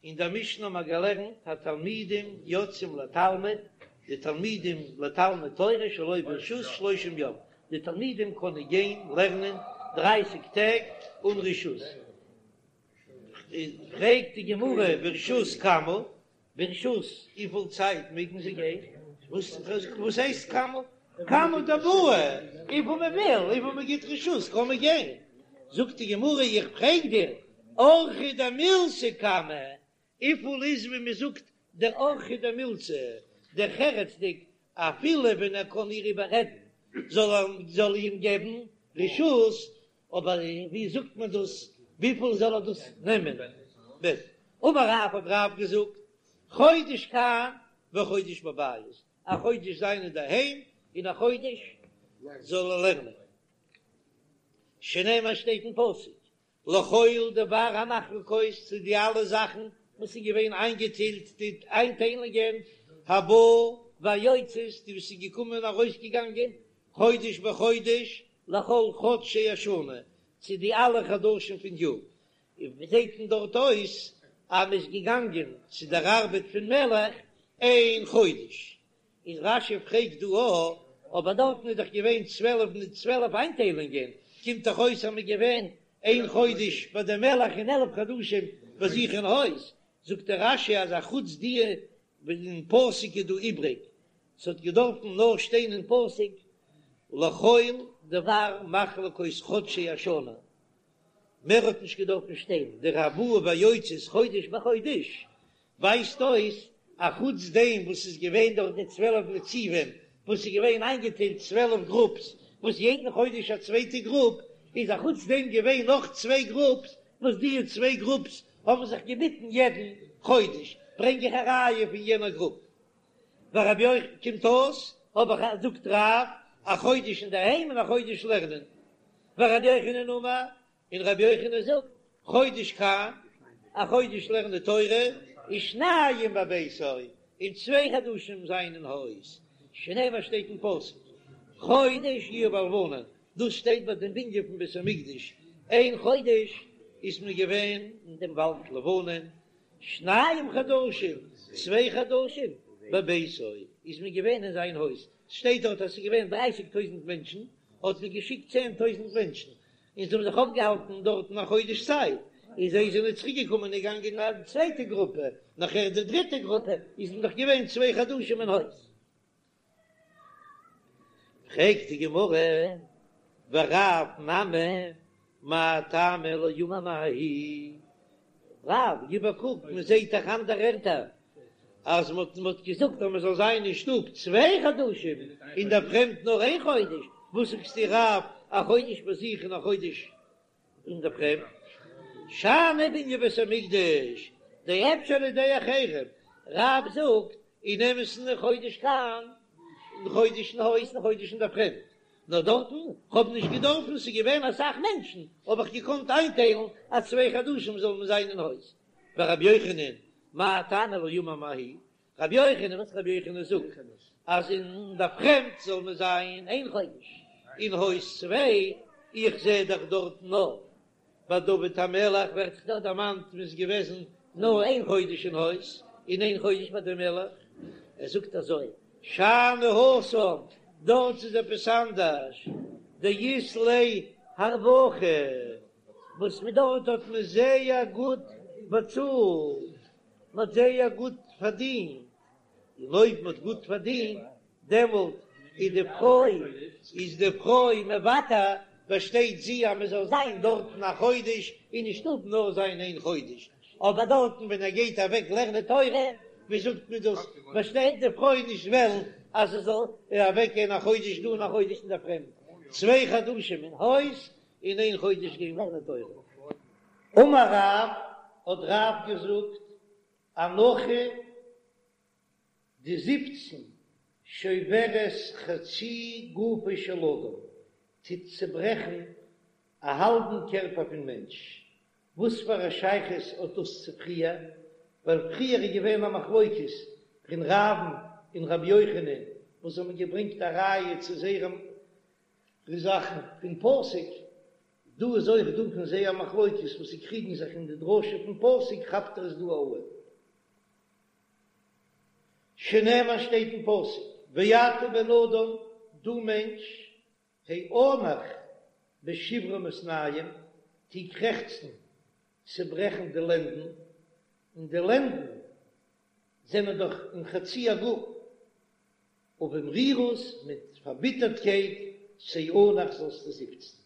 אין דער משנה האבן מיר געלערנט התלמידים יוצאים לתלמוד, די תלמידים לתלמוד תורה שלא ברשות שלושים יום, די תלמידים קענען גיין לערנען דרייסיג טעג אן רשות, פרעגט די גמרא ברשות כמה, ברשות וויפיל צייט מעגן זיי גיין? וואס הייסט כמה? כמה דבעי, וויפיל מען וויל, וויפיל מען גיט רשות קען מען גיין. זאגט די גמרא איך פרעג דיר, אורחא דמילתא כמה, וויפיל איז ווי מען זאגט דער אורחא דמילתא, דרך ארץ'דיג, אפילו ווען ער קען איר איבעררעדן זאל ער זאל אים געבן רשות, אבער ווי זאגט מען דאס, וויפיל זאל ער דאס נעמען? אמר רב האט רב געזאגט, חודש כאן וחודש בבית, א חודש זיין אינדערהיים און א חודש זאל ער לערנען, שנאמר שטייט אין פסוק, לכל דבר המחלקות צו די אלע זאכן וואס איז געווען איינגעטיילט די איינטיילונגען, הבאה והיוצאת די וואס איז געקומען און ארויסגעגאנגען, חודש בחודש, לכל חדשי השנה, צו די אלע חדשים פון יאר, און ווי זעט מען דארט אויס אז מען איז געגאנגען צו דער ארבעט פון מלך איין חודש, איז רש"י פרעגט דא א, אבער דארטן איז דאך געווען 12 מיט 12 איינטיילונגען, קומט דאך אויס אז מען איז געווען איין חודש ביי דעם מלך און 11 חדשים ביי זיך אין הויז, זאגט דער רש"י אז א חוץ די אין פסוק איז דא איבריג, ס'האט געדארפן נאר שטיין אין פסוק לכל דבר מחלקות חדשי השנה, מער האט נישט געדארפן שטיין, דער הבאה והיוצאת חודש בחודש ווייזט אויס א חוץ דעם וואס איז געווען דורך די 12 נציבים וואס איז געווען איינגעטיילט 12 גרופס וואס יעדן חודש א צווייטע גרופ, איז א חוץ דעם געווען נאך צוויי גרופס וואס די צוויי גרופס האבן זיך געביטן יעדן חודש, ברענג איך א ראיה פון יענער גרופ. ורבי יוחנן קומט אויס האב איך זאגט רב א חודש אינדערהיים און א חודש לערנען, ורבי יוחנן אמר, און רבי יוחנן זאגט, חודש כאן, א חודש לערנען תורה, ושניים בביתו, און צוויי חדשים זיין אין הויז, שנאמר שטייט אין פסוק, חודש יהיו בלבנון, דאס שטייט ביי דעם בנין פון בית המקדש, איין חודש איז מען געווען אין דעם וואלד לבנון, שניים חדשים, צוויי חדשים, בביתו, איז מען געווען אין זיין הויז, ס'שטייט דארט אז ס'איז געווען דרייסיג טויזנט מענטשן, האט מען געשיקט צען טויזנט מענטשן, און זיי האבן זיך אויפגעהאלטן דארטן א חודש צייט, און זיי זענען צוריק געקומען און געגאנגען א צווייטע גרופע, נאכער די דריטע גרופע, איז מען דאך געווען צוויי חדשים אין הויז. פרעגט די גמרא, ורב נמי מאי טעמא לא אמר מההיא, רב, גיב א קוק, מען זעט דאך אנדערע ערטער אז מען האט געזאגט אז מען זאל זיין אין שטוב צוויי חדשים, אין דער פרעמד נאר איין חודש, וואס זאגסטו רב, א חודש ביי זיך און א חודש אין דער פרעמד? שאני בנין בית המקדש, דאפשר על ידי אחרים, רב זאגט אין אמת'ן חודש כאן, און חודש אין הויז און חודש אין דער פרעמד, נאר דארטן, כ'האב נישט געדארפן, ס'איז געווען אסאך מענטשן, האב איך געקאנט איינטיילן אז צוויי חדשים זאל מען זיין אין הויז. ורבי יוחנן, מאי טעמא לא אמר מההיא, רבי יוחנן, וואס רבי יוחנן זאגט אז אין דער פרעמד זאל מען זיין איין חודש, אין הויז צוויי, איך זע דאך דארט נאר ביי דוד המלך ווערט דאך דארט דערמאנט מען איז געוועזן נאר איין חודש אין הויז און איין חודש ביי די מלך, ער זאגט אזוי שאני התם, דארט איז עפעס אנדערש, דאית ליה הרווחה, וואס מען דארט האט מען זייער גוט באצאלט, מען האט זייער גוט פארדינט, און אויב מען האט גוט פארדינט דעמאלט איז די פרוי איז די פרוי מוותר, באשטייט זי אז מען זאל זיין דארטן א חודש און אין שטוב נאר זיין איין חודש, אבער דארטן ווען ער גייט אוועק לערנען תורה, ווי זאגט מען דאס, באשטייט די פרוי נישט וועלן אז ער זאל אוועק גיין א חודש דא און א חודש אין דער פרעמד, צוויי חדשים אין הויז און איין חודש גיין לערנען תורה. אמר רב, האט רב געזאגט, אנחה די זיפצן שוברת חצי גופו של אדם, טוט צעברעכן א האלבן קערפער פון מענטש. וואס פאר א שייכות האט דאס צו פריער? ווייל פריער איז געווען א מחלוקת פון רב'ן און רבי יוחנן וואס האבן געברענגט א ראיה צו זייערע זאכן פון פסוק. דא איז אויך דא פון זיי א מחלוקת וואס זיי קריגן זיך אין די דרשה פון פסוק כאפט ער עס דא אן. שנאמר שטייט אין פסוק ואתה בן אדם דו מענטש האנח בשברון מתנים טו קרעכצן צעברעכן די לענדן, און די לענדן זענען דאך אין חצי הגוף, ובמרירות מיט פארביטערטקייט תאנח זאלסטו זיפצן.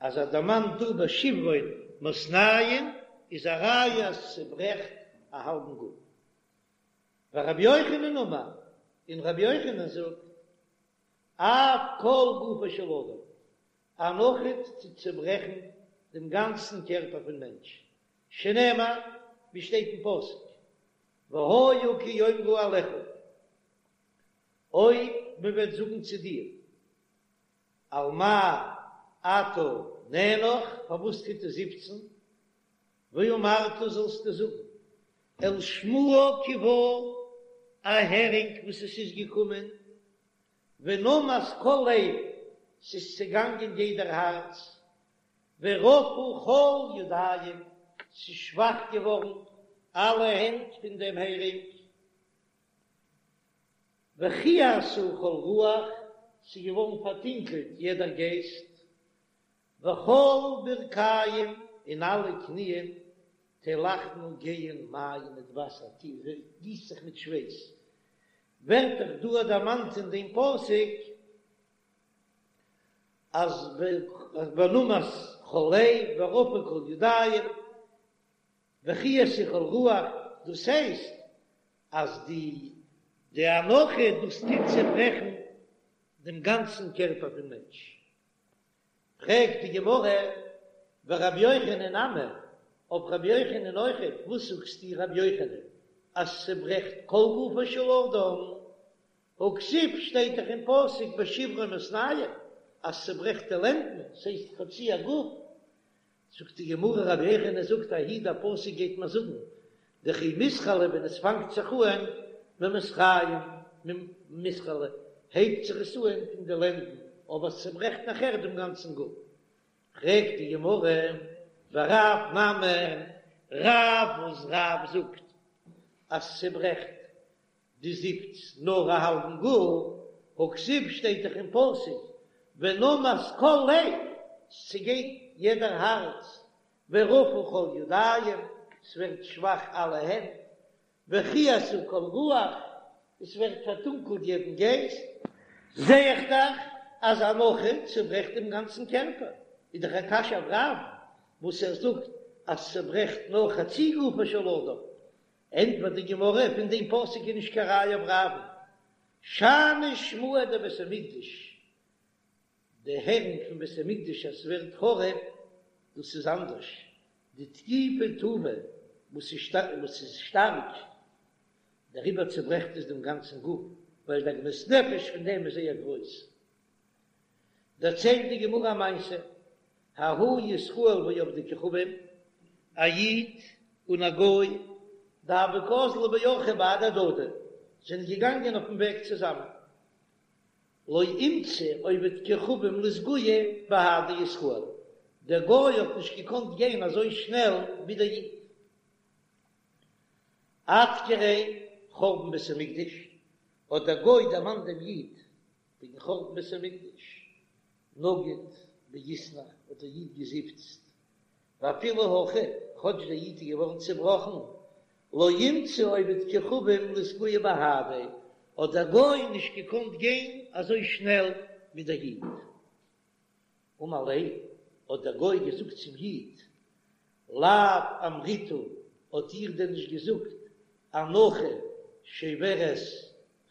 אז ער דערמאנט דא בשברון מתנים איז א ראיה אז ס'צעברעכט א האלבן גוף. ורבי יוחנן אמר, און רבי יוחנן זאגט, אף כל גופו של אדם, אנחה טוט צעברעכן דעם גאנצן קערפער פון מענטש, שנאמר, ווי שטייט אין פסוק, והיה כי יאמרו אליך, אויב מען וועט זאגן צו דיר, על מה אתה נאנח, פארוואס טוט ער זיפצן, ואמרת זאלסטו זאגן, אל שמועה כי באה, א הערינג וואס עס איז געקומען, ונמס כל לב, ס'איז צעגאנגען יעדער הארץ, ורפו כל ידיים, ס'איז שוואך געווארן אלע הענט פון דעם הערינג, וכהתה כל רוח, ס'איז געווארן פארטונקלט יעדער גייסט, וכל ברכיים, און אלע קניען, תלכנה גייען מים מיט וואסער, גיסט זיך מיט שווייס, ווערט דאך דא דערמאנט אין דעם פסוק אז ונמס כל לב ורפו כל ידיים וכהתה כל רוח, דאס הייסט אז די די אנחה דאס טוט צעברעכן דעם גאנצן קערפער פון מענטש. פרעגט די גמרא, ורבי יוחנן נמי, אויף רבי יוחנן אויכעט, וואס זאגסטו רבי יוחנן אז ס'צעברעכט כל גופו של אדם, הכתיב שטייט דאך אין פסוק בשברון מתנים אז ס'צעברעכט די לענדן, ס'הייסט חצי הגוף, זאגט די גמרא רבי יוחנן זאגט ההיא דער פסוק גייט מיר זאגן דכי מתחלא ווען עס פאנגט זיך אהן ממסריים מתחלא הייבט זיך עס אהן פון די לענדן אבער עס צוברעכט נאכער דעם גאנצן גוף פרעגט די גמרא ורב נמי רב וואס רב זאגט אז ס'צוברעכט די זיפץ נאר א האלבן גוף, הכתיב שטייט דאך אין פסוק ונמס כל לב, ס'צעגייט יעדער הארץ, ורפו כל ידיים, ס'ווערט שוואך אלע הענט, וכהתה כל רוח, עס ווערט פארטונקלט יעדן גייסט, זע איך דאך אז אנחה צוברעכט דעם גאנצן קערפער, איז דאך א קשיא אויף רב וואס ער זאגט אז ס'צוברעכט נאר חצי גופו של אדם, ענטפערט די גמרא, פון דעם פסוק איז נישט קיין ראיה אויף רב'ן, שאני שמועה דבית המקדש, די הערינג פון בית המקדש אז ס'ווערט חרוב, דאס איז אנדערש, דתקיפא טובא וואס איז שטארק, דעריבער צוברעכט עס דעם גאנצן גוף, ווייל די עגמת נפש פון דעם איז זייער גרויס. דערציילט די גמרא א מעשה, ההוא ישראל ועובדי כוכבים, א איד און א גוי, דהוו קאזלי באורחא בהדי הדדי, זענען געגאנגען אויפן וועג צוזאמען, לא אימצי עובד כוכבים לאסגויי בהדי ישראל, דער גוי האט נישט געקאנט גיין אזוי שנעל ווי דער איד. אדכריה חורבן בית המקדש, האט דער גוי דערמאנט דעם איד וועגן חורבן בית המקדש, נגיד ואיתנח האט דער איד געזיפצט, ואפילו הכי, כאטש דער איד איז געווארן צעבראכן, לא אימצי עובד כוכבים לאסגויי בהדיה, האט דער גוי נישט געקאנט גיין אזוי שנעל ווי דער איד. אמר ליה, האט דער גוי געזאגט צום איד, לאו אמריתו, האט איר דען נישט געזאגט, אנחה שוברת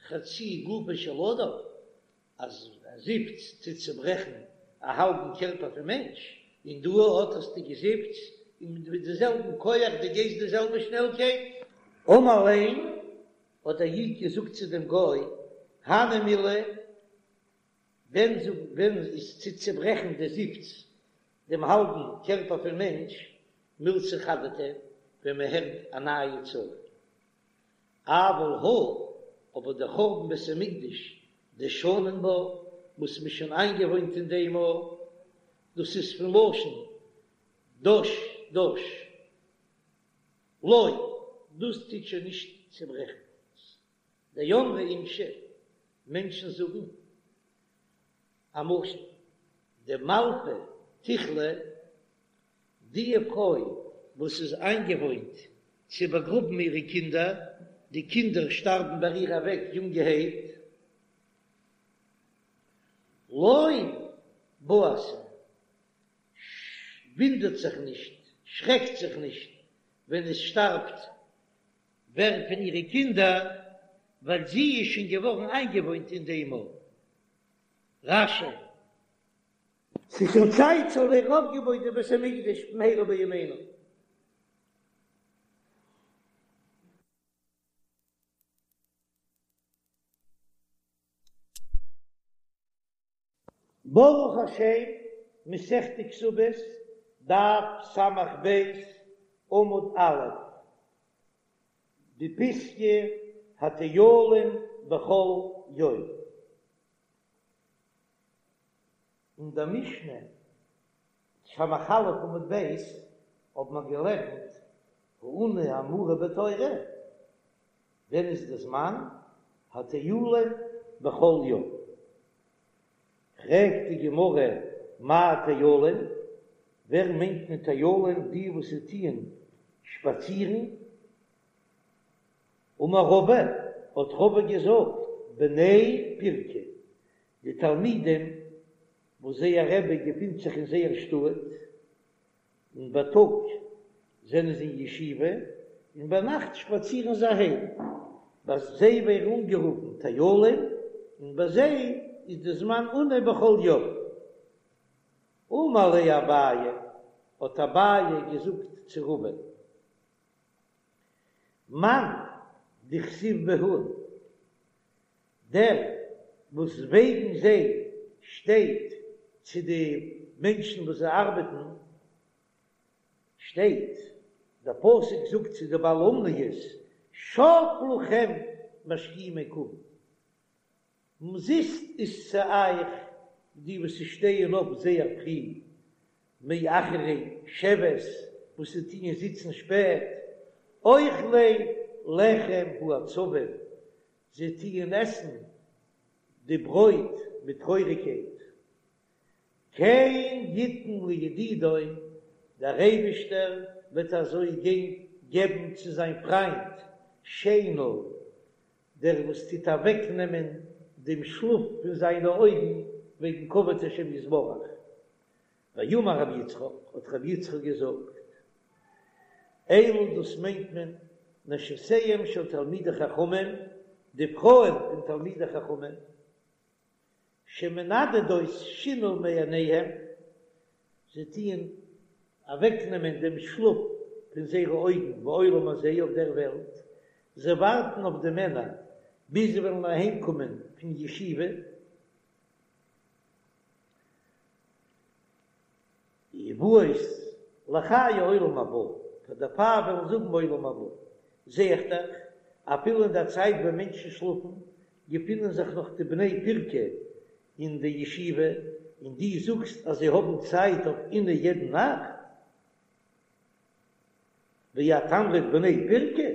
חצי גופו של אדם, אז א זיפץ טוט צוברעכן א האלבן קערפער פון מענטש, און דא אט האסטו געזיפצט און מיט די זעלבן כח דו גייסט די זעלבע שנעלקייט. אמר ליה, האט דער איד געזאגט צו דעם גוי, הני מילי, ווען ווען איז צו צוברעכן די זיפץ דעם האלבן קערפער פון מענטש, מילתא חדתא, ווען מען הערט א נייע צרה. אבל הא, אבער דער חורבן בית המקדש, דשנין בה, וואס מ'איז שוין איינגעוואוינט אין דעם א. דאס איז פון לשון דש דש, לא, דאס טוט שוין נישט צעברעכן. דאמרי אינשי, מענטשן זאגן א משל, דמלפא תיכלא, די פרוי וואס איז איינגעוואוינט צו באגראבן אירע קינדער, די קינדער שטארבן ביי איר אוועק יונגערהייט, לא בהתה, ווינדערט זיך נישט, שרעקט זיך נישט ווען עס שטארבט ווער פון אירע קינדער, ווייל זי איז שוין געווארן איינגעוואוינט אין דעם מאל. רש"י. ס'איז שוין צייט ס'זאל ווערן אויפגעבויט די בית המקדש במהרה בימינו. ברוך השם, מסכת כתובות, דף ס"ב, עמוד א', די פיסקא הטיילין בכל יום. אין דער משנה, ס"א עמוד ב', האט מען געלערנט העונה האמורה בתורה, ווען איז די זמן הטיילין בכל יום? פרעגט די גמרא מאי טיילין, ווער מיינט מען טיילין די וואס טוען שפאצירן? אמר רבא, האט רבא געזאגט, בני פירקא, די תלמידים וואס זייער רבי געפינט זיך אין זייער שטאט, און בייטאג זענען זיי אין ישיבה, און ביינאכט שפאצירן זיי אהיים. ביי זיי ווערן אנגערופן טיילים, און ביי זיי איז די זמן עונה בכל יום. אמר ליה אביי, האט אביי געזאגט צו רבא, מאן דכתיב בהו, דער וואס וועגן זיי שטייט צו די מענטשן וואס זיי ארבעטן, שטייט, דער פסוק זאגט צו די בעלי אומניות, שוא לכם משכימי קום, אומזיסט איז צו אייך די וואס שטייען אויף זייער פרי, מאחרי שבת וואס זיי טוען זיצן שפעט, אוכלי לחם העצבים, זיי טוען עסן די ברויט מיט טרויעריגקייט. כן יתן לידידו, דער אייבישטער וועט אזוי געבן צו זיין פריינט שינה, דער וואס טוט אוועקנעמען דעם שלאף פון זיינע אויגן וועגן כבוד השם יתברך. ואמר רבי יצחק, האט רבי יצחק געזאגט, אלו דאס מיינט מען נשותיהם של תלמידי חכמים, די פרויען פון תלמידי חכמים, שמנדדות שינה מעיניהם, זיי טוען אוועקנעמען דעם שלאף פון זייערע אויגן בעולם הזה אויף דער וועלט, זיי ווארטן אויף די מענער ביז זיי וועלן אהיימקומען פון ישיבה, ובאות לחיי עולם הבא, פאר דערפאר וועלן זיי האבן עולם הבא, זע איך דאך, אפילו אין דער צייט ווען מענטשן שלאפן, געפינען זיך נאך די בני פירקא אין די ישיבה, און דו זאגסט אז זיי האבן צייט אויף עונה יעדן נאכט? ואת אמרת בני פירקא?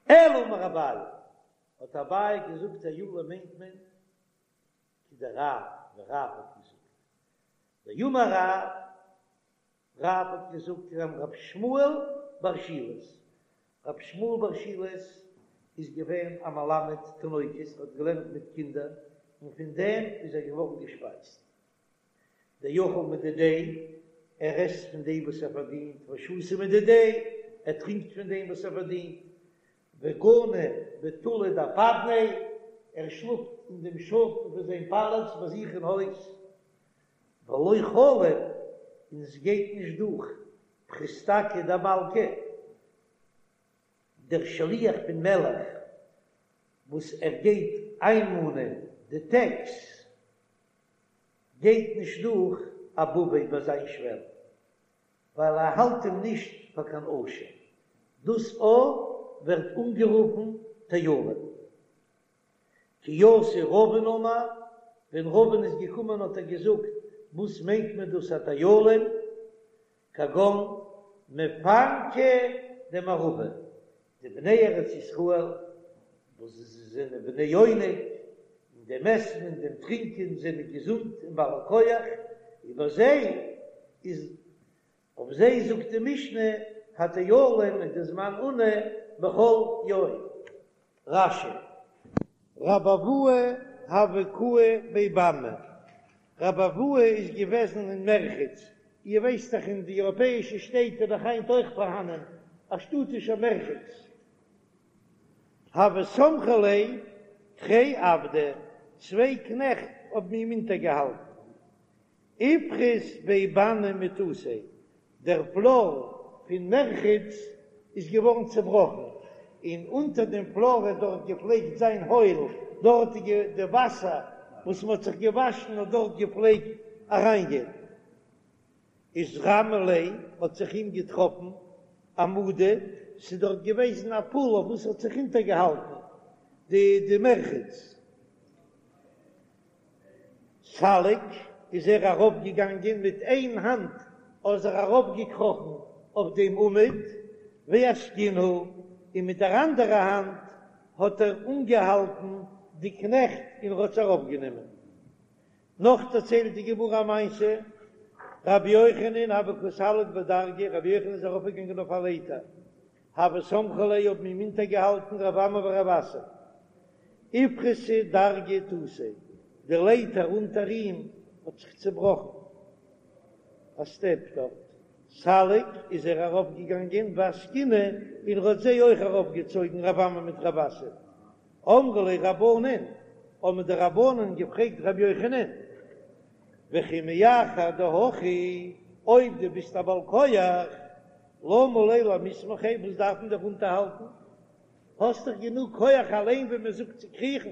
אלא אמר אביי, האט אביי געזאגט טיילים מיינט מען כדרב, ווי רב האט געזאגט, דאמר רב, רב האט געזאגט כגון רב שמואל בר שילת, רב שמואל בר שילת איז געווען א מלמד תינוקות, האט געלערנט מיט קינדער, און פון דעם איז ער געווארן געשפייזט. דאכיל מדידיה, ער עסט פון דעם וואס ער פארדינט, ושתי מדידיה, ער טרינקט פון דעם וואס ער פארדינט, וגני בטולא דאפדניה, ער שלאפט אין דעם שאטן פון זיין פאלאץ ביי זיך אין הויז, ולא חליף, און עס גייט נישט דורך פריסתקא דמלכא, דער שליח פון מלך וואס ער גייט איינמאנען די טעקס, גייט נישט דורך אבביה ביי זיין שוועל. ווייל ער האלט אים נישט פאר קיין עושר, דאס א ווערט אנגערופן טיילין. כי אתא רבין אמר, ווען רבין איז געקומען האט ער געזאגט. וואס מיינט מען דאס הטיילים? כגון מפנקי דמערבא, די בני ארץ ישראל וואס זיי זענען בני עונג, אין דעם עסן און דעם טרינקען זענען געזונט און בעלי כח, איבער זיי איז אויף זיי זאגט די משנה הטיילים איז די זמן עונה בכל יום. רש"י. רבי אבהו הוה קאי בי באני, רבי אבהו איז געוועזן אין מרחץ, איר ווייסט דאך אין די אייראפעאישע שטעט איז דאך היינט אויך פארהאנען א שטאטישער מרחץ, הוו סמכי ליה תרי עבדי, צוויי קנעכט האבן אים אונטערגעהאלטן, איפחת בי באני מתותיה, דער פלאר פון מרחץ איז געווארן צעבראכן, און אונטער דעם פלאר האט דארט געפלעגט זיין הויל, דארט איז די וואסער וואס מען האט זיך געוואשן האט דארט געפלעגט אריינגיין. איתרמי ליה האט זיך אים געטראפן עמודא, ס'איז דארט געוועזן א פאל אויף וואס האט זיך אונטערגעהאלטן די די מרחץ. סליק איז ער ארויפגעגאנגען מיט איין האנט איז ער ארויפגעקראכן אויף דעם עמוד ואסקינהו און מיט דער אנדערע האנט האט ער אנגעהאלטן די קנעכט און ער האט זיי ארויפגענומען. נאך דערציילט די גמרא א מעשה, רבי יוחנן הוה קא סליק בדרגא, רבי יוחנן איז ארויפגעגאנגען אויף א לייטער, הוו סמכי ליה האבן אים אונטערגעהאלטן רב אמי ורב אסי, איפחתא דרגא תותיה, די לייטער אונטער אים האט זיך צעבראכן, א סטעפ דארט, סליק איז ער ארויפגעגאנגען ואסקינהו און ער האט זיי אויך ארויפגעצויגן רב אמי מיט רב אסי, אמרו ליה רבנן, האבן די רבנן געפרעגט רבי יוחנן, וכי מאחר דהכי, אויב דו ביסט א בעל כח, למה ליה למיסמכיה, וואס דארף מען דיך אונטערהאלטן? האסט דאך גענוג כח אליין ווי מען זאגט צו קריכן.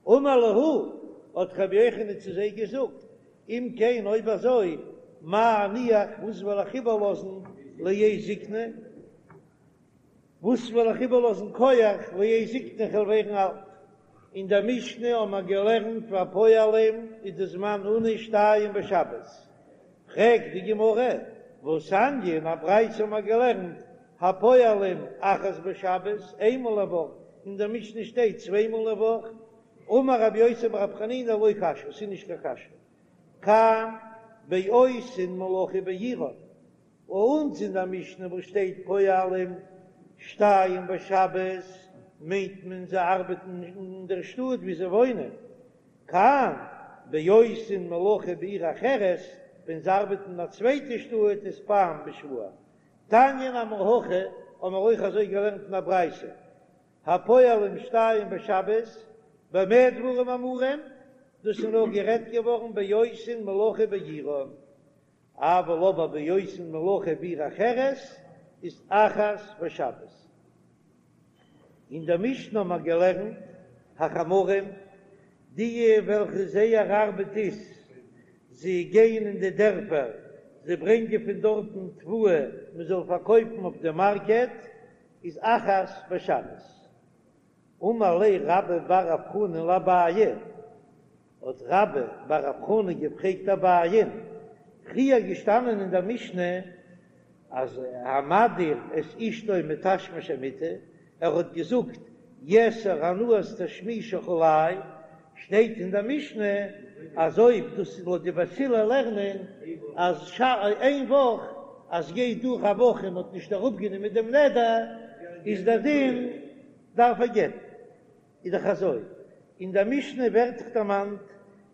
אמר להו, האט רבי יוחנן צו זיי געזאגט, אם כן אויב אזוי, מה אניח, וואס וועל איך איבערלאזן לעת זקנה? וואס וועל איך איבערלאזן כח לעת זקנה כ'וועל ווערן אלט? אין דער משנה האבן מיר געלערנט והפועלים איז די זמן עונה שתיים בשבת, פרעגט די גמרא, והתניא, אין א ברייתא האבן מיר געלערנט הפועלים אחת בשבת, איינמאל א וואך, אין דער משנה שטייט צוויי מאל א וואך, אמר רבי יוסי ברבי חנינא לא קשיא, ס'איז נישט קיין קשיא, כאן בעושין מלאכה בעירן, ביי אונז אין דער משנה וואס שטייט פועלים שתיים בשבת מיינט מען זיי ארבעטן אין דער שטאט ווי זיי וואוינען, כאן בעושין מלאכה בעיר אחרת, ווען זיי ארבעטן אין א צווייטע שטאט איז פעם בשבוע. תניא נמי הכי האבן מיר אויך אזוי געלערנט אין א ברייתא, הפועלים שתיים בשבת, במה דברים אמורים, דאס איז נאר גערעדט געווארן בעושין מלאכה בעירן, אבל אבער בעושין מלאכה בעיר אחרת איז אחת בשבת. אין דער משנה האבן מיר געלערנט החמרים, די וועלכע זייער ארבעט איז זיי גייען אין די דערפער, זיי ברענגען פון דארטן תבואה מען זאל פארקויפן אויף די מארקעט, איז אחת בשבת. אמר ליה רבה בר רב חנן לאביי, האט רבה בר רב חנן געפרעגט אביי'ן, פריער געשטאנען אין דער משנה אז המדיר את אשתו מתשמיש המיטה, ער האט געזאגט יאסר הנאת תשמישך עלי, שטייט אין דער משנה אז אויב דאס איז לויט די בית הלל לערנען אז איין וואך אז גייט דורך א וואך און מען האט נישט אראפגענומען דעם נדר איז דער דין דארף ער גט'ן. איז דאך אזוי, אין דער משנה ווערט דאך דערמאנט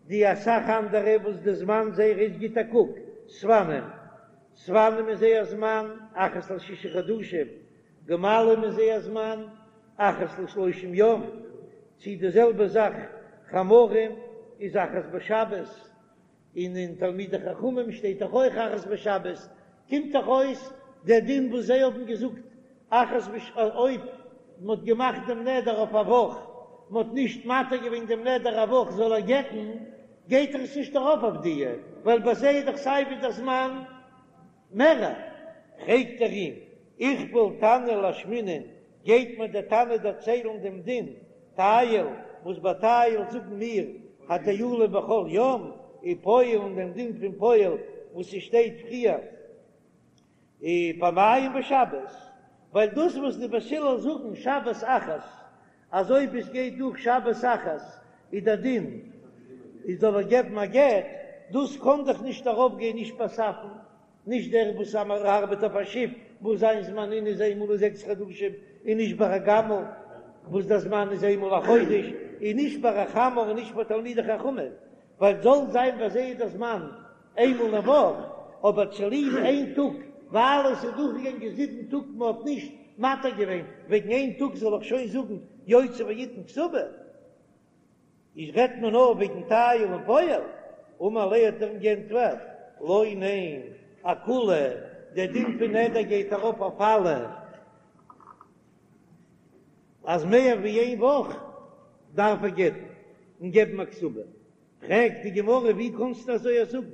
די אסאך אנדערע וואס די זמן זייער איז גיט א קוק, ספנים, ספנים איז זייער זמן אחת לשישה חדשים, גמלים איז זייער זמן אחת לשלושים יום, צי די זעלבע זאך חמרים איז אחת בשבת, און אין תלמידי חכמים שטייט דאך אויך אחת בשבת, קומט דאך אויס דער דין וואס זיי האבן געזאגט אחת בש אויב מען האט געמאכט דעם נדר אויף א וואך, מען האט נישט מתיר געווען דעם נדר א וואך זאל ער גט'ן, גייט ער עס נישט ארויף אויף די, ווייל ביי זיי איז דאך סיי ווי דער זמן מערער. פרעגט ער אים, איכפל תנא לאשמועינן, גייט מיר דער תנא דערציילן דעם דין טייל, וואס ביי טייל זאגן מיר הטיילים בכל יום? ופועל און דעם דין פון פועל וואס ס'שטייט פריער פעמיים בשבת, ווייל דאס וואס די בית הלל זאגן שבת אחת אז אויב עס גייט דורך שבת אחת איז דער דין איז זאל ער געבן א גט, דאס קען דאך נישט ארויפגיין נישט ביי ספן, נישט דער וואס ארבעט אויף א שיף וואס זיין זמן עינוי איז איינמאל אין זעקס חדשים, און נישט ביי א גמל וואס דער זמן איז איינמאל א חודש, און נישט ביי א חמור און נישט ביי תלמידי חכמים, ווייל זאל זיין ביי זיי איז דער זמן איינמאל אין וואך, אבער צוליב איין טאג ווייל עס איז דורכגעגאנגען זיבן טאג מען האט נישט מתיר געווען, וועגן איין טאג זאל איך שוין זאגן יוציא ויתן כתובה? איז רעדט מען נאר וועגן טייל און פועל? אמר ליה האט ער אים גענטפערט, לא ניין, אכולהו, דער דין פון נדר גייט ארויף אויף אלע, אז מער ווי איין וואך דארף ער גט'ן און געבן א כתובה. פרעגט די גמרא ווי קאנסטו אזוי זאגן,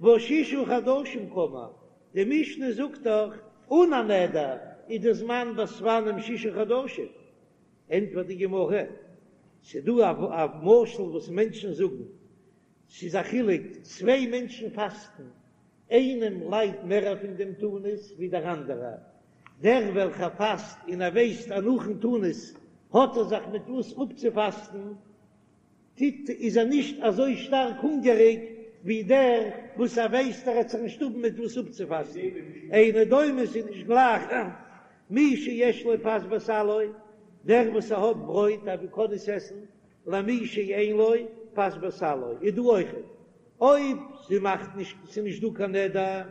והא ששה חדשים קאמר, די משנה זאגט דאך אן א נדר איז די זמן ביי ספנים ששה חדשים, ענטפערט די גמרא, ס'דא א משל וואס מענטשן זאגן, ס'איז א חילוק, צוויי מענטשן פאסטן, איינעם ליידט מער פון דעם תענית ווי דער אנדערער, דער וועלכער פאסט און ער ווייסט אז נאכן תענית האט ער זיך מיט וואס אפצופאסטן, טוט איז ער נישט אזוי שטארק הונגעריג ווי דער וואס ער ווייסט ער וועט זיך נישט האבן מיט וואס אפצופאסטן, אינו דומה ס'איז נישט גלייך מי שיש לו פת בסלו, דער וואס ער האט ברויט אז ער קען עס עסן, למי שאין לו פת בסלו, איז דא אויכעט אויב זי מאכט נישט ס'איז נישט דא קיין נדר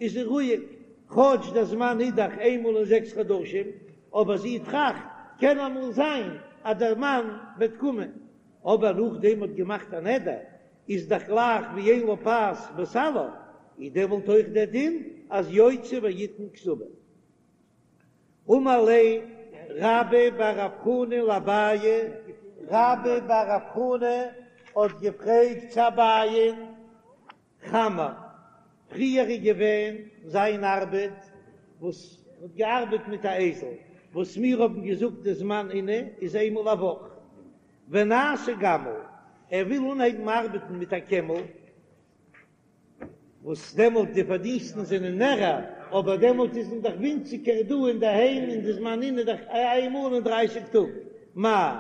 איז זי רואיג, כאטש דער זמן איז דאך איינמאל אין זעקס חדשים, אבער זי טראכט קען אמאל זיין אז דער מאן וועט קומען, אבער נאכדעם האט געמאכט א נדר איז דאך גלייך ווי אין לה פת בסלו, איז דעמאלט אויך דער דין אז יוציא ויתן כתובה. אמר ליה רבה בר רב חנא לאביי, רבה בר רב חנא האט געפרעגט צו אביי'ן, חמר, פריער איז געווען זיין ארבעט וואס האט געארבעט מיט א אייזל, וואס מיר האבן געזאגט די זמן עינוי איז איינמאל א וואך, ונעשה גמל, ער וויל אנהייבן ארבעטן מיט א קעמל, וואס דעמאלט די פארדינסטן זענען מערער, אבער דעמאלט איז מען דאך ווינציגער דא אינדערהיים און די זמן עינוי איז דאך איינמאל אין דרייסיג טאג, מהו,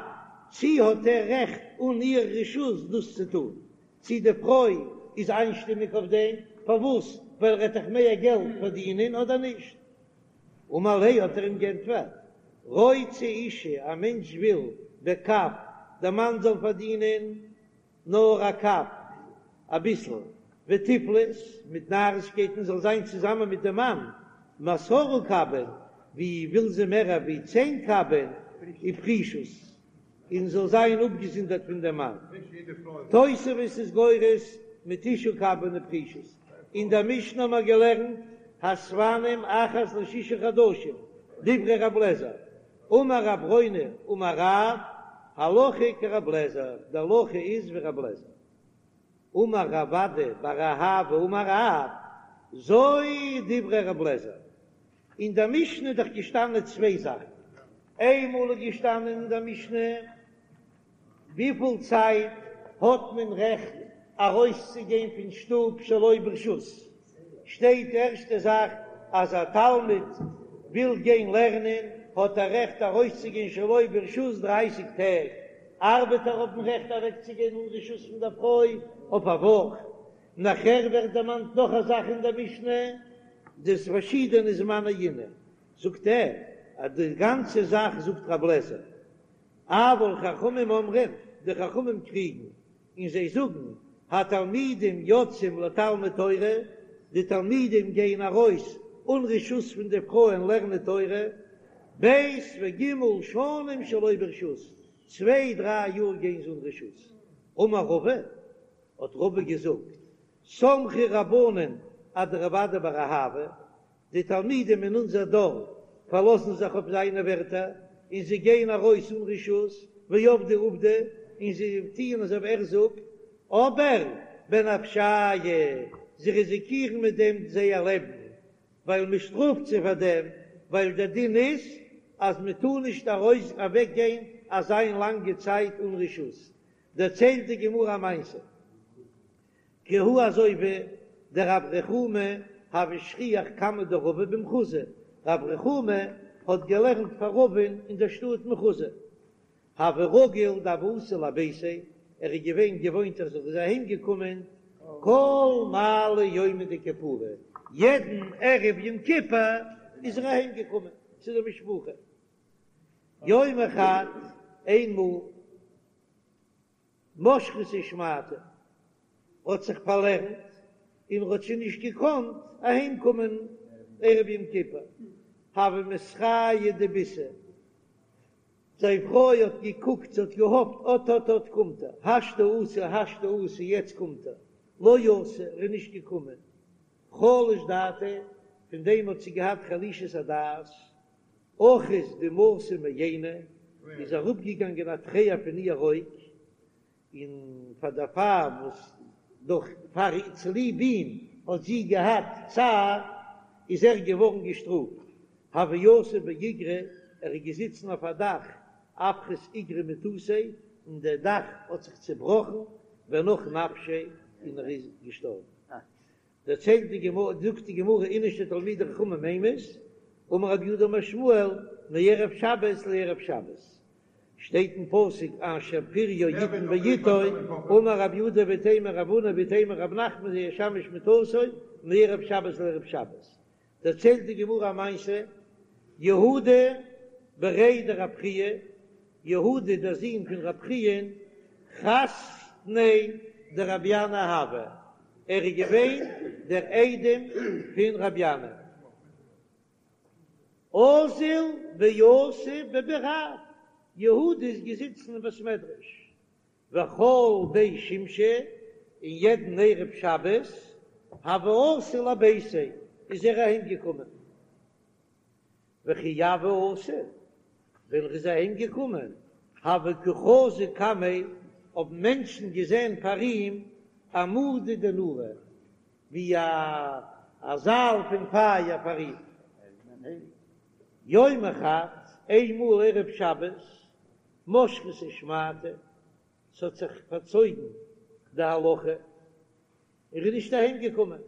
צי האט ער רעכט אן איר רשות דאס צו טון? צי די פרוי איז איינשטימיג אויף דעם? פארוואס? ווייל ער וועט דאך מער געלט פארדינען אדער נישט? אמר ליה האט ער אים גענטפערט, רוצה אשה, א מענטש וויל בקב, דער מאן זאל פארדינען נאר א קב, אביסל, ותיפלות, מיט נארישקייטן זאל זיין צוזאמען מיט דעם מאן, מעשרה קבין, ווי וויל זי מער ווי צען קבין, ופרישות, און זאל זיין אפגעזונדערט פון דעם מאן. תוספות איז גורס מתשעה קבין ופרישות. אין דער משנה האבן מיר געלערנט, הספנים אחת לשישה חדשים, דברי רב לעזער, אמר רב ברונא אמר רב, הלכה כרב לעזער, די הלכה איז ווי רב לעזער. אמר רב אדא בר אהבה אמר רב, זו דברי רב לעזער. אין דער משנה איז דאך געשטאנען צוויי זאכן, איינמאל איז געשטאנען אין דער משנה וויפיל צייט האט מען רעכט ארויסצוגיין פון שטוב שלא ברשות, שטייט די ערשטע זאך אז א תלמיד וויל גיין לערנען האט ער רעכט ארויסצוגיין שלא ברשות דרייסיג טעג, ארבעטער האבן רעכט אוועקצוגיין אן רשות פון דער פרוי אויף א וואך, נאכער ווערט דערמאנט נאך א זאך אין דער משנה, די פארשידענע זמני עינוי, זאגט ער אז די גאנצע זאך זאגט רב לעזער, אבל חכמים אומרים, די חכמים קריגן, און זיי זאגן, התלמידים יוצאים לתלמוד תורה, די תלמידים גייען ארויס אן רשות פון די פרויען לערנען תורה, ב' וג' שנים שלא ברשות, צוויי דריי יאר גייען זיי אן רשות. אמר רבא, האט רבא געזאגט, סמכו רבנן אדרב אדא בר אהבה, די תלמידים אין אונזער דור פארלאזן זיך אויף זיינע ווערטער און זיי גייען ארויס אן רשות, ועבדי עובדא, און זיי טוען אזוי ווי ער זאגט, אבער בנפשייהו, זיי ריזיקירן מיט דעם זייער לעבן, ווייל מען שטראפט זיי פאר דעם, ווייל דער דין איז אז מען טאר נישט ארויס אוועק גיין אזא לאנגע צייט אן רשות. דערציילט די גמרא א מעשה. כי הא אזוי ווי דרב רחומי הוה שכיח קמיה דרבא במחוזא, רב רחומי האט געלערנט פאר רבא'ן אין דער שטאט מחוזא, הוה רגיל דהוה אתי לביתיה, ער איז געווען געוואוינט אז ער איז אהיים געקומען כל מעלי יומא דכיפורי, יעדן ערב יום כיפור איז ער אהיים געקומען צו די משפחה, יומא חד, איינמאל. משכתיה שמעתא האט זיך פארלערנט און האט שוין נישט געקאנט אהיים קומען ערב יום כיפור, הוה מתרעיא דביתהו, זיין פרוי האט געקוקט, זי האט געהאפט אט אט אט קומט ער, השתא אתי השתא אתי יעצט קומט ער, לא אתא, ער איז נישט געקומען, חלש דעתיה, פון דעם האט זי געהאט חלישות הדעת, אחית דמעתא מעיניה, איז אראפגעגאנגען א טרער פון איהר אויג, און פאר דערפאר וואס דורך פאר צוליב אים האט זי געהאט צער, איז ער געווארן געשטראפט, הוה יתיב באיגרא, ער איז געזיצן אויף א דאך, אפחית איגרא מתותיה, און דער דאך האט זיך צעבראכן, ונח נפשיה, און ער איז געשטארבן. דערציילט די גמרא, זאגט די גמרא, איניש דתלמידי חכמים אימת, אמר רב יהודה אמר שמואל, מערב שבת לערב שבת, שטייט אין פסוק אשר פריו יתן בעתו, אמר רב יהודה ואיתימא רב הונא ואיתימא רב נחמן זה ישמש מטתו מערב שבת לערב שבת, דערציילט די גמרא א מעשה, יהודה בריה דרב חייא, יהודה דער זון פון רב חייא, חתניה דרבי ינאי הוה, ער איז געווען דער איידעם פון רבי ינאי. אזיל ויתיב בבי רב, יהודה איז געזיצן אין בית מדרש, וכל בי שמשי, און יעדן ערב שבת, הוה אתי לביתיה, איז ער אהיים געקומען. וכי הוה אתי, ווען ער איז אהיים געקומען, הוה קא חזו קמיה, האבן מענטשן געזען פאר אים עמודא דנורא, ווי א זייל פון פייער פאר אים. יומא חד, איינמאל ערב שבת, משכתיה שמעתא, ס'האט זיך פארצויגן די הלכה, ער איז נישט אהיים געקומען,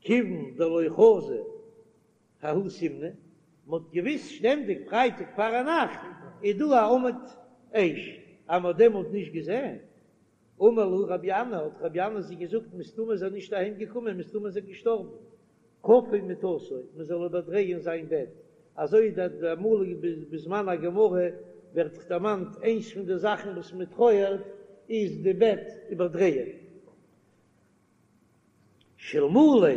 כיוון דלא חזו ההוא סימנא, מ'האט געוויסט שטענדיג פרייטאג פארנאכט איז דא א עמוד אש, אז מ'האט דעמאלט נישט געזען, אמר להו רבי ינאי, האט רבי ינאי זיי געזאגט, מסתמא איז ער נישט אהיים געקומען, מסתמא איז ער געשטארבן, כפו מטתו, מ'זאל איבערדרייען זיין בעט, אזוי די אמאל בזמן הגמרא ווערט דערמאנט איינס פון די זאכן וואס מ'טרויערט איז די בעט איבערדרייען. שאלמלא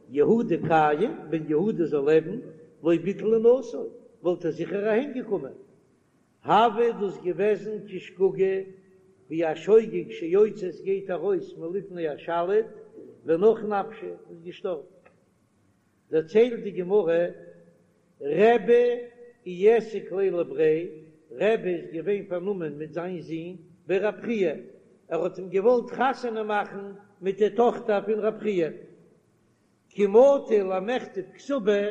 יהודה קיים, ווען יהודה זאל לעבן, לא ביטל אונתו, וואלט ער זיכער אהיים געקומען. הוה דאס געוועזן כשגגה, ווי א שוגג שיוצא עס גייט ארויס מלפני השליט, ונח נפשיה איז געשטארבן. דערציילט די גמרא, רבי איעסק ליה לבריה, רבי איז געווען פארנומען מיט זיין זון בי רב חייא, ער האט אים געוואלט חתונה מאכן מיט די טאכטער פון רב חייא, כי מטו למיכתב כתובה,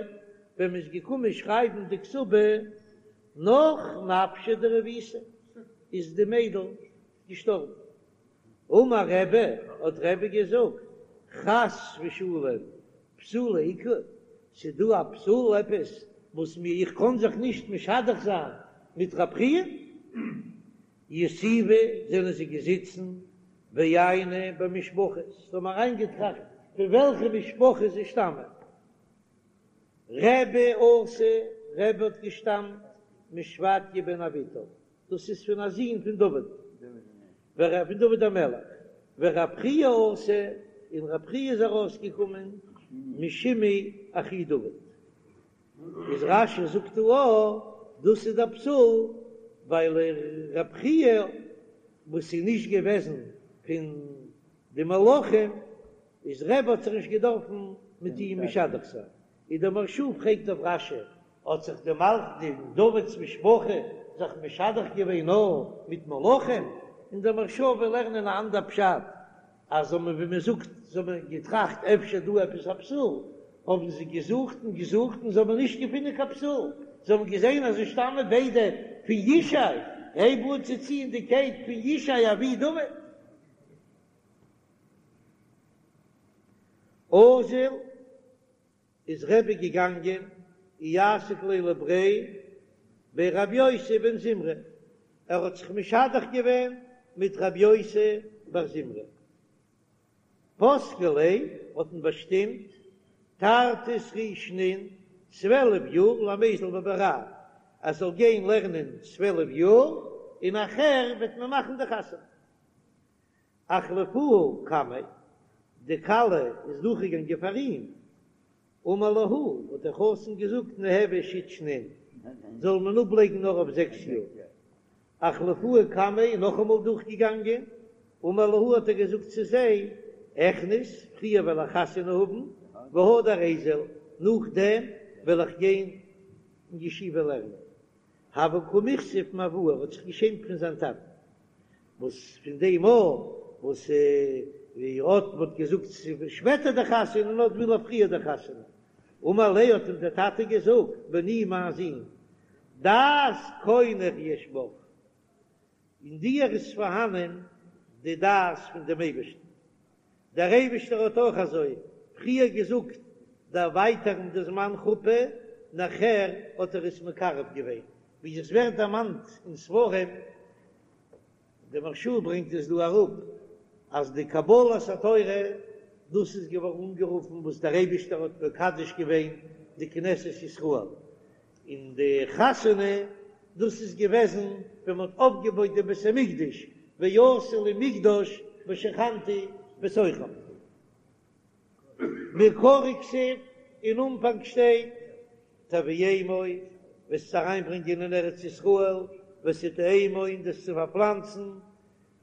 ווען מען איז געקומען שרייבן די כתובה, נח נפשה דרביתא, איז די מיידל געשטארבן. אמר רבי, האט רבי געזאגט, חס ושלום, פסולא איכא, ס'דא א פסול עפעס וואס מיר איך קען זיך נישט משדך זיין מיט רב חייא? יתיבי זענען זיי געזיצן ועייני במשפחות, זיי האבן אריינגעטראכט פון וועלכע משפחה זיי שטאמען, רבי אתא, רבי האט געשטאמט משפטיה בן אביטל, דאס איז פון א זון פון דוד, פון דוד המלך, ורב חייא אתא, און רב חייא איז ארויסגעקומען משמעי אחי דוד. איז רש"י זאגט דא א, דאס איז דער פסול, ווייל רב חייא וואס איז נישט געוועזן פון די מלכים, איז רבי האט זיך נישט געדארפן מיט אים משדך זיין. איז דער מהרש"א פרעגט אויף רש"י, האט זיך די מלך די דוד'ס משפחה זיך משדך געווען נאר מיט מלכים? און דער מהרש"א וויל לערנען א אנדער פשט, אז האבן ווי מען זאגט זיי האבן געטראכט אפשר דא עפעס א פסול, האבן זיי געזוכט און געזוכט און זיי האבן נישט געפונען קיין פסול, זיי האבן געזען אז זיי שטאמען ביידע פון ישי, הייב אן צו ציען די קייט פון ישי אבי דוד. אזיל איז רבי געגאנגען איעסק ליה לבריה בי רבי יוסי בן זמרא, ער האט זיך משדך געווען מיט רבי יוסי בר זמרא. פסקו ליה האט מען באשטימט תרתי סרי שנין, 12 יאר למיזל בבי רב, ער זאל גיין לערנען 12 יאר און נאכער וועט מען מאכן די חתונה. אחלפוה קמיה, די כלה איז דורכגעגאנגען פאר אים, אמר להו, האט דער חתן געזאגט ניהוו שית שנין, זאל מען אפלייגן נאר אויף זעקס יאר. אחלפוה קמיה איז נאכאמאל דורכגעגאנגען, אמר להו האט ער געזאגט צו זיי, אכניס, פריער וועל איך חתונה האבן, והדר איזיל, נאכדעם וועל איך גיין אין ישיבה לערנען. הוה קא מיכסיף מאבוה, ער האט זיך געשעמט פון זיין טאטן, וואס פון דעם מאל וואס ווי האט מ'האט געזאגט שפעטער די חתונה און אט וויל ער פריער די חתונה, אמר ליה האט אים דער טאטע געזאגט, בני מיין זון, דעת קונך יש בך, אין דיר איז פארהאנען די דעת פון דעם אייבערשטן, דער אייבערשטער האט אויך אזוי פריער געזאגט דערווייטערן די זמן חופה, נאכער האט ער עס מקרב געווען, ווי עס ווערט דערמאנט אין ספרים, דער מהרש"א ברענגט עס דא אראפ, אז די קבלת התורה דאס איז געווארן אנגערופן וואס דער אייבערשטער האט מקדש געווען די כנסת ישראל, און די חתונה דאס איז געוועזן ווען מען האט אויפגעבויט דעם בית המקדש, ועשו לי מקדש ושכנתי בתוכם. מעיקרא כתיב, אין אנפאנג שטייט תביאמו, וועסט עס אריינברענגען אין ארץ ישראל, ותטעמו און דאס צו פארפלאנצן,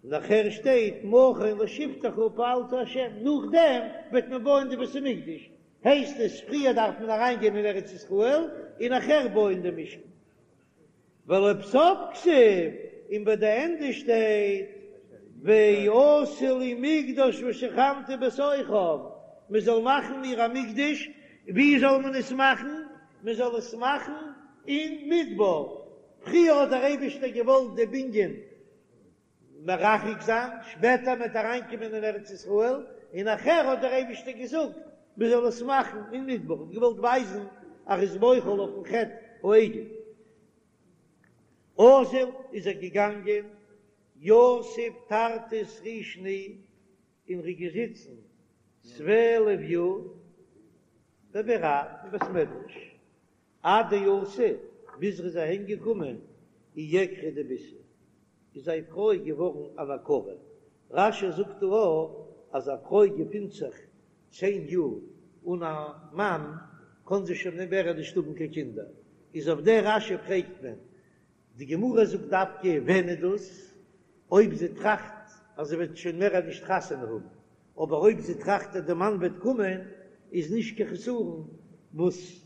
נאכער שטייט מכון לשבתך פעלת ה', נאכדעם וועט מען בויען די בית המקדש, הייסט עס פריער דארף מען אריין גיין אין ארץ ישראל און נאכער בויען די משכן. ולבסוף כתיב, און ביי די ענדע שטייט ועשו לי מקדש ושכנתי בתוכם, מען זאל מאכן מיר א מקדש, ווי זאל מען עס מאכן? מען זאל עס מאכן אין מדבר, פריער האט דער אייבערשטער געוואלט די בנין מרחק זיין, שפעטער מ'וועט אריינקומען אין ארץ ישראל, און נאכער האט דער אייבערשטער געזאגט מען זאל עס מאכן אין מדבר, האט געוואלט ווייזן אז ער איז מוחל אויפן חטא העגל. אזיל איז ער געגאנגען, יתיב תרתי סרי שני, און ר'איז געזיצן 12 יאר בבי רב אין בית מדרש, עד דאתא, ביז ר'איז אהיים געקומען, איעקרא דביתהו, איז זיין פרוי געווארן אן עקרה. רש"י זאגט דא אויך אז א פרוי געפינט זיך צען יאר אן א מאן, קען זי שוין מער נישט האבן קיין קינדער. איז אויף דער רש"י פרעגט מען, די גמרא זאגט דווקא ווען איז דאס? אויב זי טראכט אז זי וועט שוין מער נישט חתונה האבן, אבער אויב זי טראכט אז די מאן וועט קומען איז נישט קיין חסרון וואס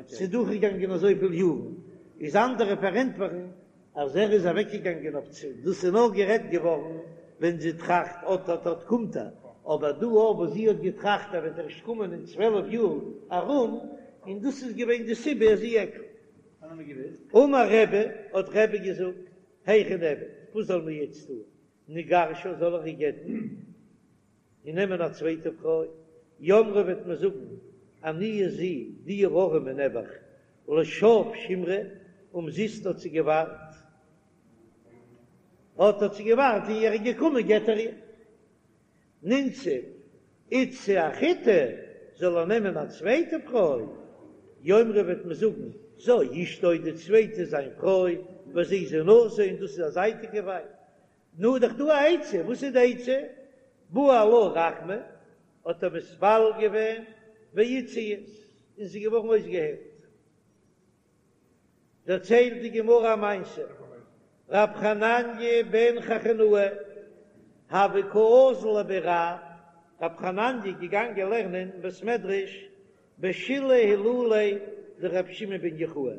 ס'איז דורכגעגאנגען אזויפיל יארן, איז אנדערע פארענטפערן אז ער איז אוועקגעגאנגען אויף צו, דאס איז נאר גערעדט געווארן ווען זי טראכט אט אט אט קומט ער, אבער דא אויף וואס זי האט געטראכט ער וועט ערשט קומען אין 12 יאר ארום, און דאס איז געווען די סיבה אז איעקרא. אמר רבי, האט רבי געזאגט, היכי נעביד, וואס זאל מען יעצט טון, נגרשה זאל ער איר גט'ן און נעמען א צווייטע פרוי, יאמרו וועט מען זאגן, עניה זו, די ארעמע נעבעך, לשוא שימרה, אומזיסט האט זי געווארט, האט האט זי געווארט און ער איז געקומען גט ער איר. נינסיב איתתא אחריתי, זאל ער נעמען א צווייטע פרוי, יאמרו וועט מען זאגן, זו אשתו די צווייטע איז זיין פרוי, וזו זונתו און דאס איז א זייטיגע ווייב. נו, דאך דא א עצה, וואס איז די עצה? בעי עלה רחמי, האט ער מתפלל געווען, ואיתסייית, און זי איז געווארן אויסגעהיילט. דערציילט די גמרא א מעשה, רב חנניה בן חכינאי הוה קא אזיל לבי רב, רב חנניה איז געגאנגען לערנען אין בית מדרש בשלהי הילוליה דרבי שמעון בן יוחאי,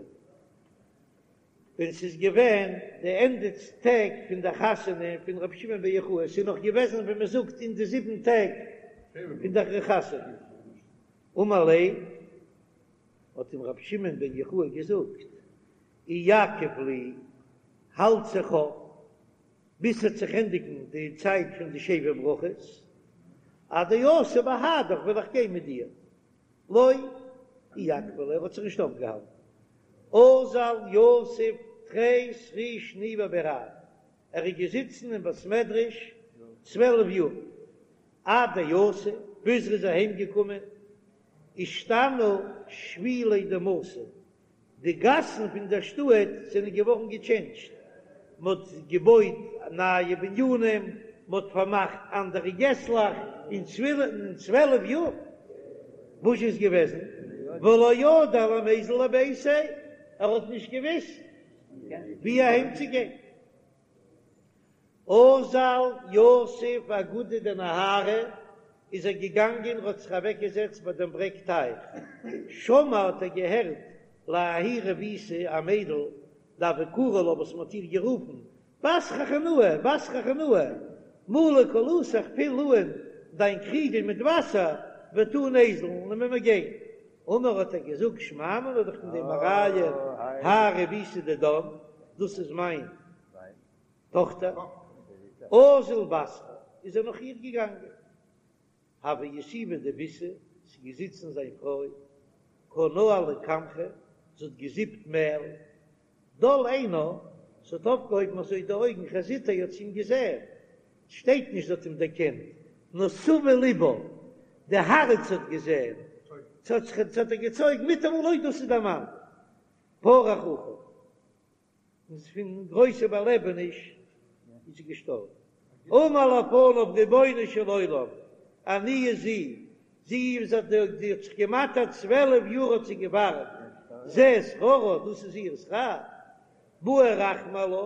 ווען ס'איז געווען די ענדע טעג פון די חתונה פון רבי שמעון בן יוחאי, ס'איז נאך געוועזן ווי מ'זאגט אין די זיבן טעג פון די חתונה, אמר ליה האט אים רבי שמעון בן יוחאי געזאגט, איעכב לי, האלט זיך אויף ביז ס'וועט זיך ענדיגן די צייט פון די שבע ברכות, עד דאתי בהדך וועל איך גיין מיט דיר. לא איעכבא ליה, ער האט זיך נישט אויפגעהאלטן. אזל יתיב תרי סרי שני בבי רב, ער איז געזיצן אין בית מדרש 12 יאר, עד דאתא, ביז ער איז אהיים געקומען, אישתנו שבילי דמתא, די גאסן פון דער שטאט זענען געווארן געטשענדזשט, מען האט געבויט נייע בנינים, מען האט פארמאכט אנדערע געסלעך, אין 12 יאר וואס איז געוועזן, ולא ידע למיזל לביתיה, ער האט נישט געוויסט ווי אהיים צו גיין. אזל יתיב אגודא דנהרא, איז ער געגאנגען און האט זיך אוועק געזעצט ביי דעם ברעג טייך, שמע האט ער געהערט לההיא רביתא א מיידל דהוו קרו לה וואס מען האט איר גערופן בת חכינאי בת חכינאי מלי כלתך פיל אן דיין קריגל מיט וואסער ותא ניזיל און מיר גיין, אמר האט ער געזאגט שמע מינה דאך פון דעם א ראיה האי רביתא דידן דאס איז מיין טאָכטער, אזל בתרה, איז ער נאָך איר געגאַנגען. הוה יתיבא דביתהו, ס'איז געזיצן זיין פרוי, קא נהלה קמחא, זי האָט געזיפּט מעל. דל עינה, זי האָט אויפגעהויבן אַזוי די אויגן, חזיתיה האָט זי אים געזען. ס'שטייט נישט זי האָט אים דערקענט, נאָר סבי לבה, די האַרץ האָט געזען. ס'האָט זיך, ס'האָט איר געצויגן מיטאַמאָל, אוי, דאָס איז דער מאַן! פרח רוחא. און פון גרויסע באלעבעניש איז זי געשטארבן. אמר לפניו רבונו של עולם, עניה זו, זי איז האט זי האט זיך געמאטערט 12 יאר האט זי געווארט, זה שכרה, דאס איז איר שכר, בעי רחמי עלה,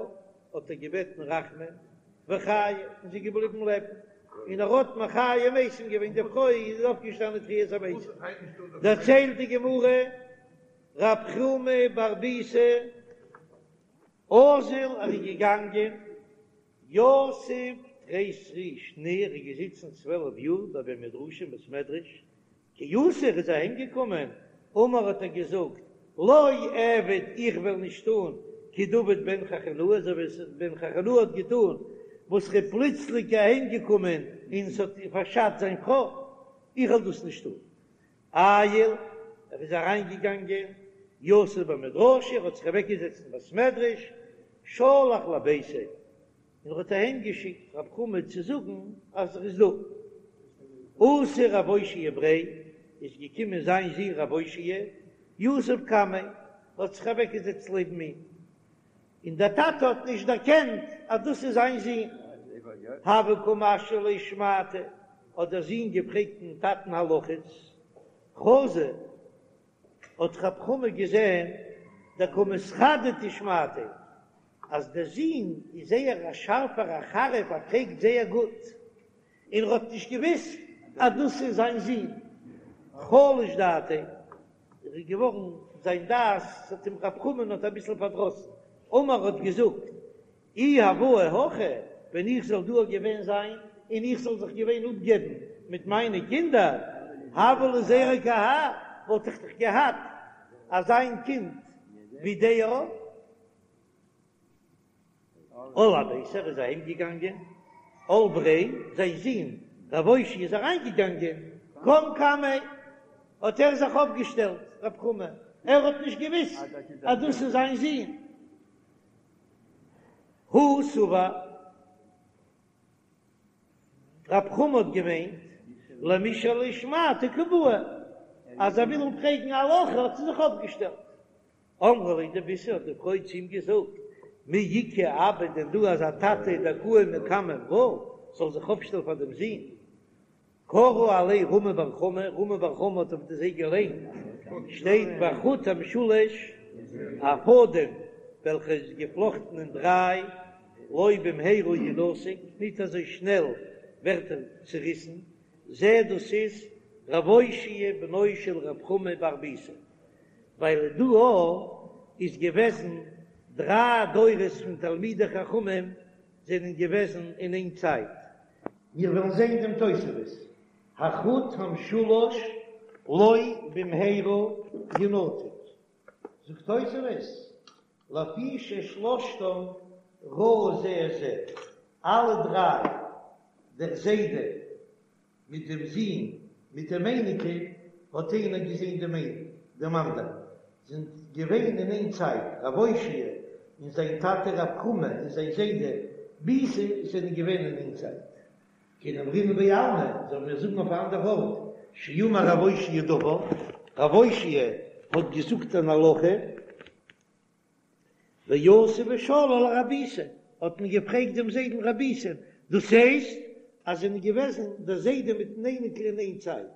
האט ער געבעטן רחמים, וחייא, און זי איז געבליבן לעבן, און ער האט מחיה מתים געווען, די פרוי איז אויפגעשטאנען תחיית המתים. דערציילט די גמרא. רב חמא בר ביסא אזל ער איז געגאנגען יתיב תרי סרי שני ער איז געזיצן 12 יאר בבי מדרשא אין בית מדרש כי אתא ער איז אהיים געקומען אמר האט ער געזאגט לא אעביד איך וועל נישט טון כדעבד בן חכינאי אזוי ווי בן חכינאי האט געטון וואס ער איז פלוצלינג אהיים געקומען און ס'האט פארשאדט זיין פרוי איך וועל דאס נישט טון עייל, ער איז אריינגעגאנגען, יתיב במדרשא, ער האט זיך אוועקגעזעצט אין בית מדרש, שלח לביתיה, און ער האט אהיים געשיקט רב חמא צו זאגן אז ער איז דא. אתא רב אושעיא בריה, איז געקומען זיין זון רב אושעיא, יתיב קמיה, האט זיך אוועקגעזעצט לעבן אים, און דער טאטע האט נישט דערקענט אז דאס איז זיין זון. הוה קא משאיל ליה שמעתא, האט דער זון געפרעגט דעם טאטן הלכות, חזא, האט רב חמא געזען דקא מתחדדא שמעתיה, אז דער זון איז זייער א שארפער א חריף, ער פרעגט זייער גוט, און ער האט נישט געוואוסט אז דאס איז זיין זון, חלש דעתיה, ער איז געווארן זיין דעת האט אים רב חמא'ן האט אביסל פארדראסן, אמר האט געזאגט, אי הואי הכא, ווען איך זאל דא געווען זיין און איך זאל זיך געווען אפגעבן מיט מיינע קינדער, הוה לי זרע כי האי, וואלט איך דאך געהאט אזיין קינד ווי דער. על אביתיה, ער איז אהיים געגאנגען, על בריה, זיין זון רב אושעיא איז אריין געגאנגען, קם קמיה, האט ער זיך אויפגעשטעלט, רב חמא, ער האט נישט געוויסט אז דאס איז זיין זון, הוא סבר, רב חמא האט געמיינט, למישאל שמעתא קא בעי, אז ער וויל אים פרעגן א הלכה האט ער זיך אויפגעשטעלט. אמרה ליה דביתהו האט די פרוי צו אים געזאגט, מי איכא אבא דען דא אזא טאטע דקאים מקמי ברא זאל זיך אויפשטעלן פאר דעם זון? קרא עלייהו רמי בר חמא, רמי בר חמא האט אויף זיי געליינט, שטייט והחוט המשולש, א פאדעם וועלכע איז געפלאכטן אין דריי, לא במהרה ינתק, ניט אזוי שנעל ווערט ער צעריסן, זה דאס איז רב אושעיא בנו של רב חמא בר ביסא. ווייל דא איז געוועזן דריי דורות פון תלמידי חכמים זענען געוועזן אין איין צייט. מיר וועלן זען דעם תוספות, החוט המשולש לא במהרה ינתק, זאגט תוספות, לפי ששלושתם ראו זה את זה, אלע דריי, דער זיידע. מיט דעם זון מיט דעם אייניקל, האט איינער געזען דעם דעם אנדערן, זענען געווען אין איין צייט, רב אושעיא און זיין טאטע רב חמא און זיין זיידע ביסא זענען געווען אין איין צייט. כדאמרינן בעלמא, זאלן מיר זאגן אויף א אנדער ארט, שאמר רב אושעיא דבר, רב אושעיא האט געזאגט אן הלכה, ואתו ושאלוה לרב ביסא, האט מען געפרעגט דעם זיידן רב ביסא, דאס הייסט אז זענען געוועזן דער זיידע מיטן אייניקל אין איין צייט,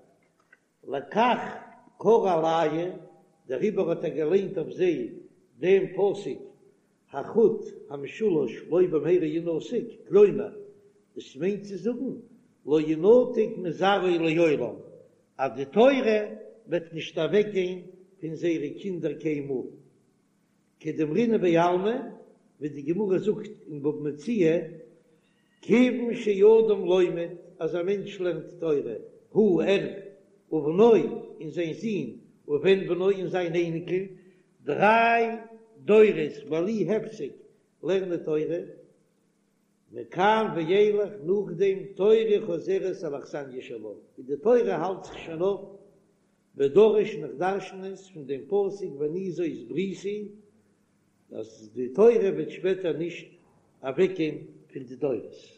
לכך קרא עלייהו, דעריבער האט ער געליינט אויף זיי דעם פסוק החוט המשולש לא במהרה ינתק, כלומר, דאס מיינט צו זאגן לא ינתק מזרעו לעולם, אז די תורה וועט נישט אוועקגיין פון זייערע קינדער קיינמאל. כדאמרינן בעלמא, ווי די גמרא זאגט אין בבא מציעא, כיוון שאדם לומד, אז א מענטש לערנט תורה, הוא ער, ובנו, און זיין זון, ובן בנו, און זיין אייניקל, דריי דורות בלי הפסק לערנען תורה, מכאן ואילך נאכדעם תורה חוזרת על אכסניא שלה, און די תורה האלט זיך שוין אויף, ודריש און איך דרשן עס פון דעם פסוק ואני זאת בריתי, אז די תורה וועט שפעטער נישט אוועקגיין פון די דורות.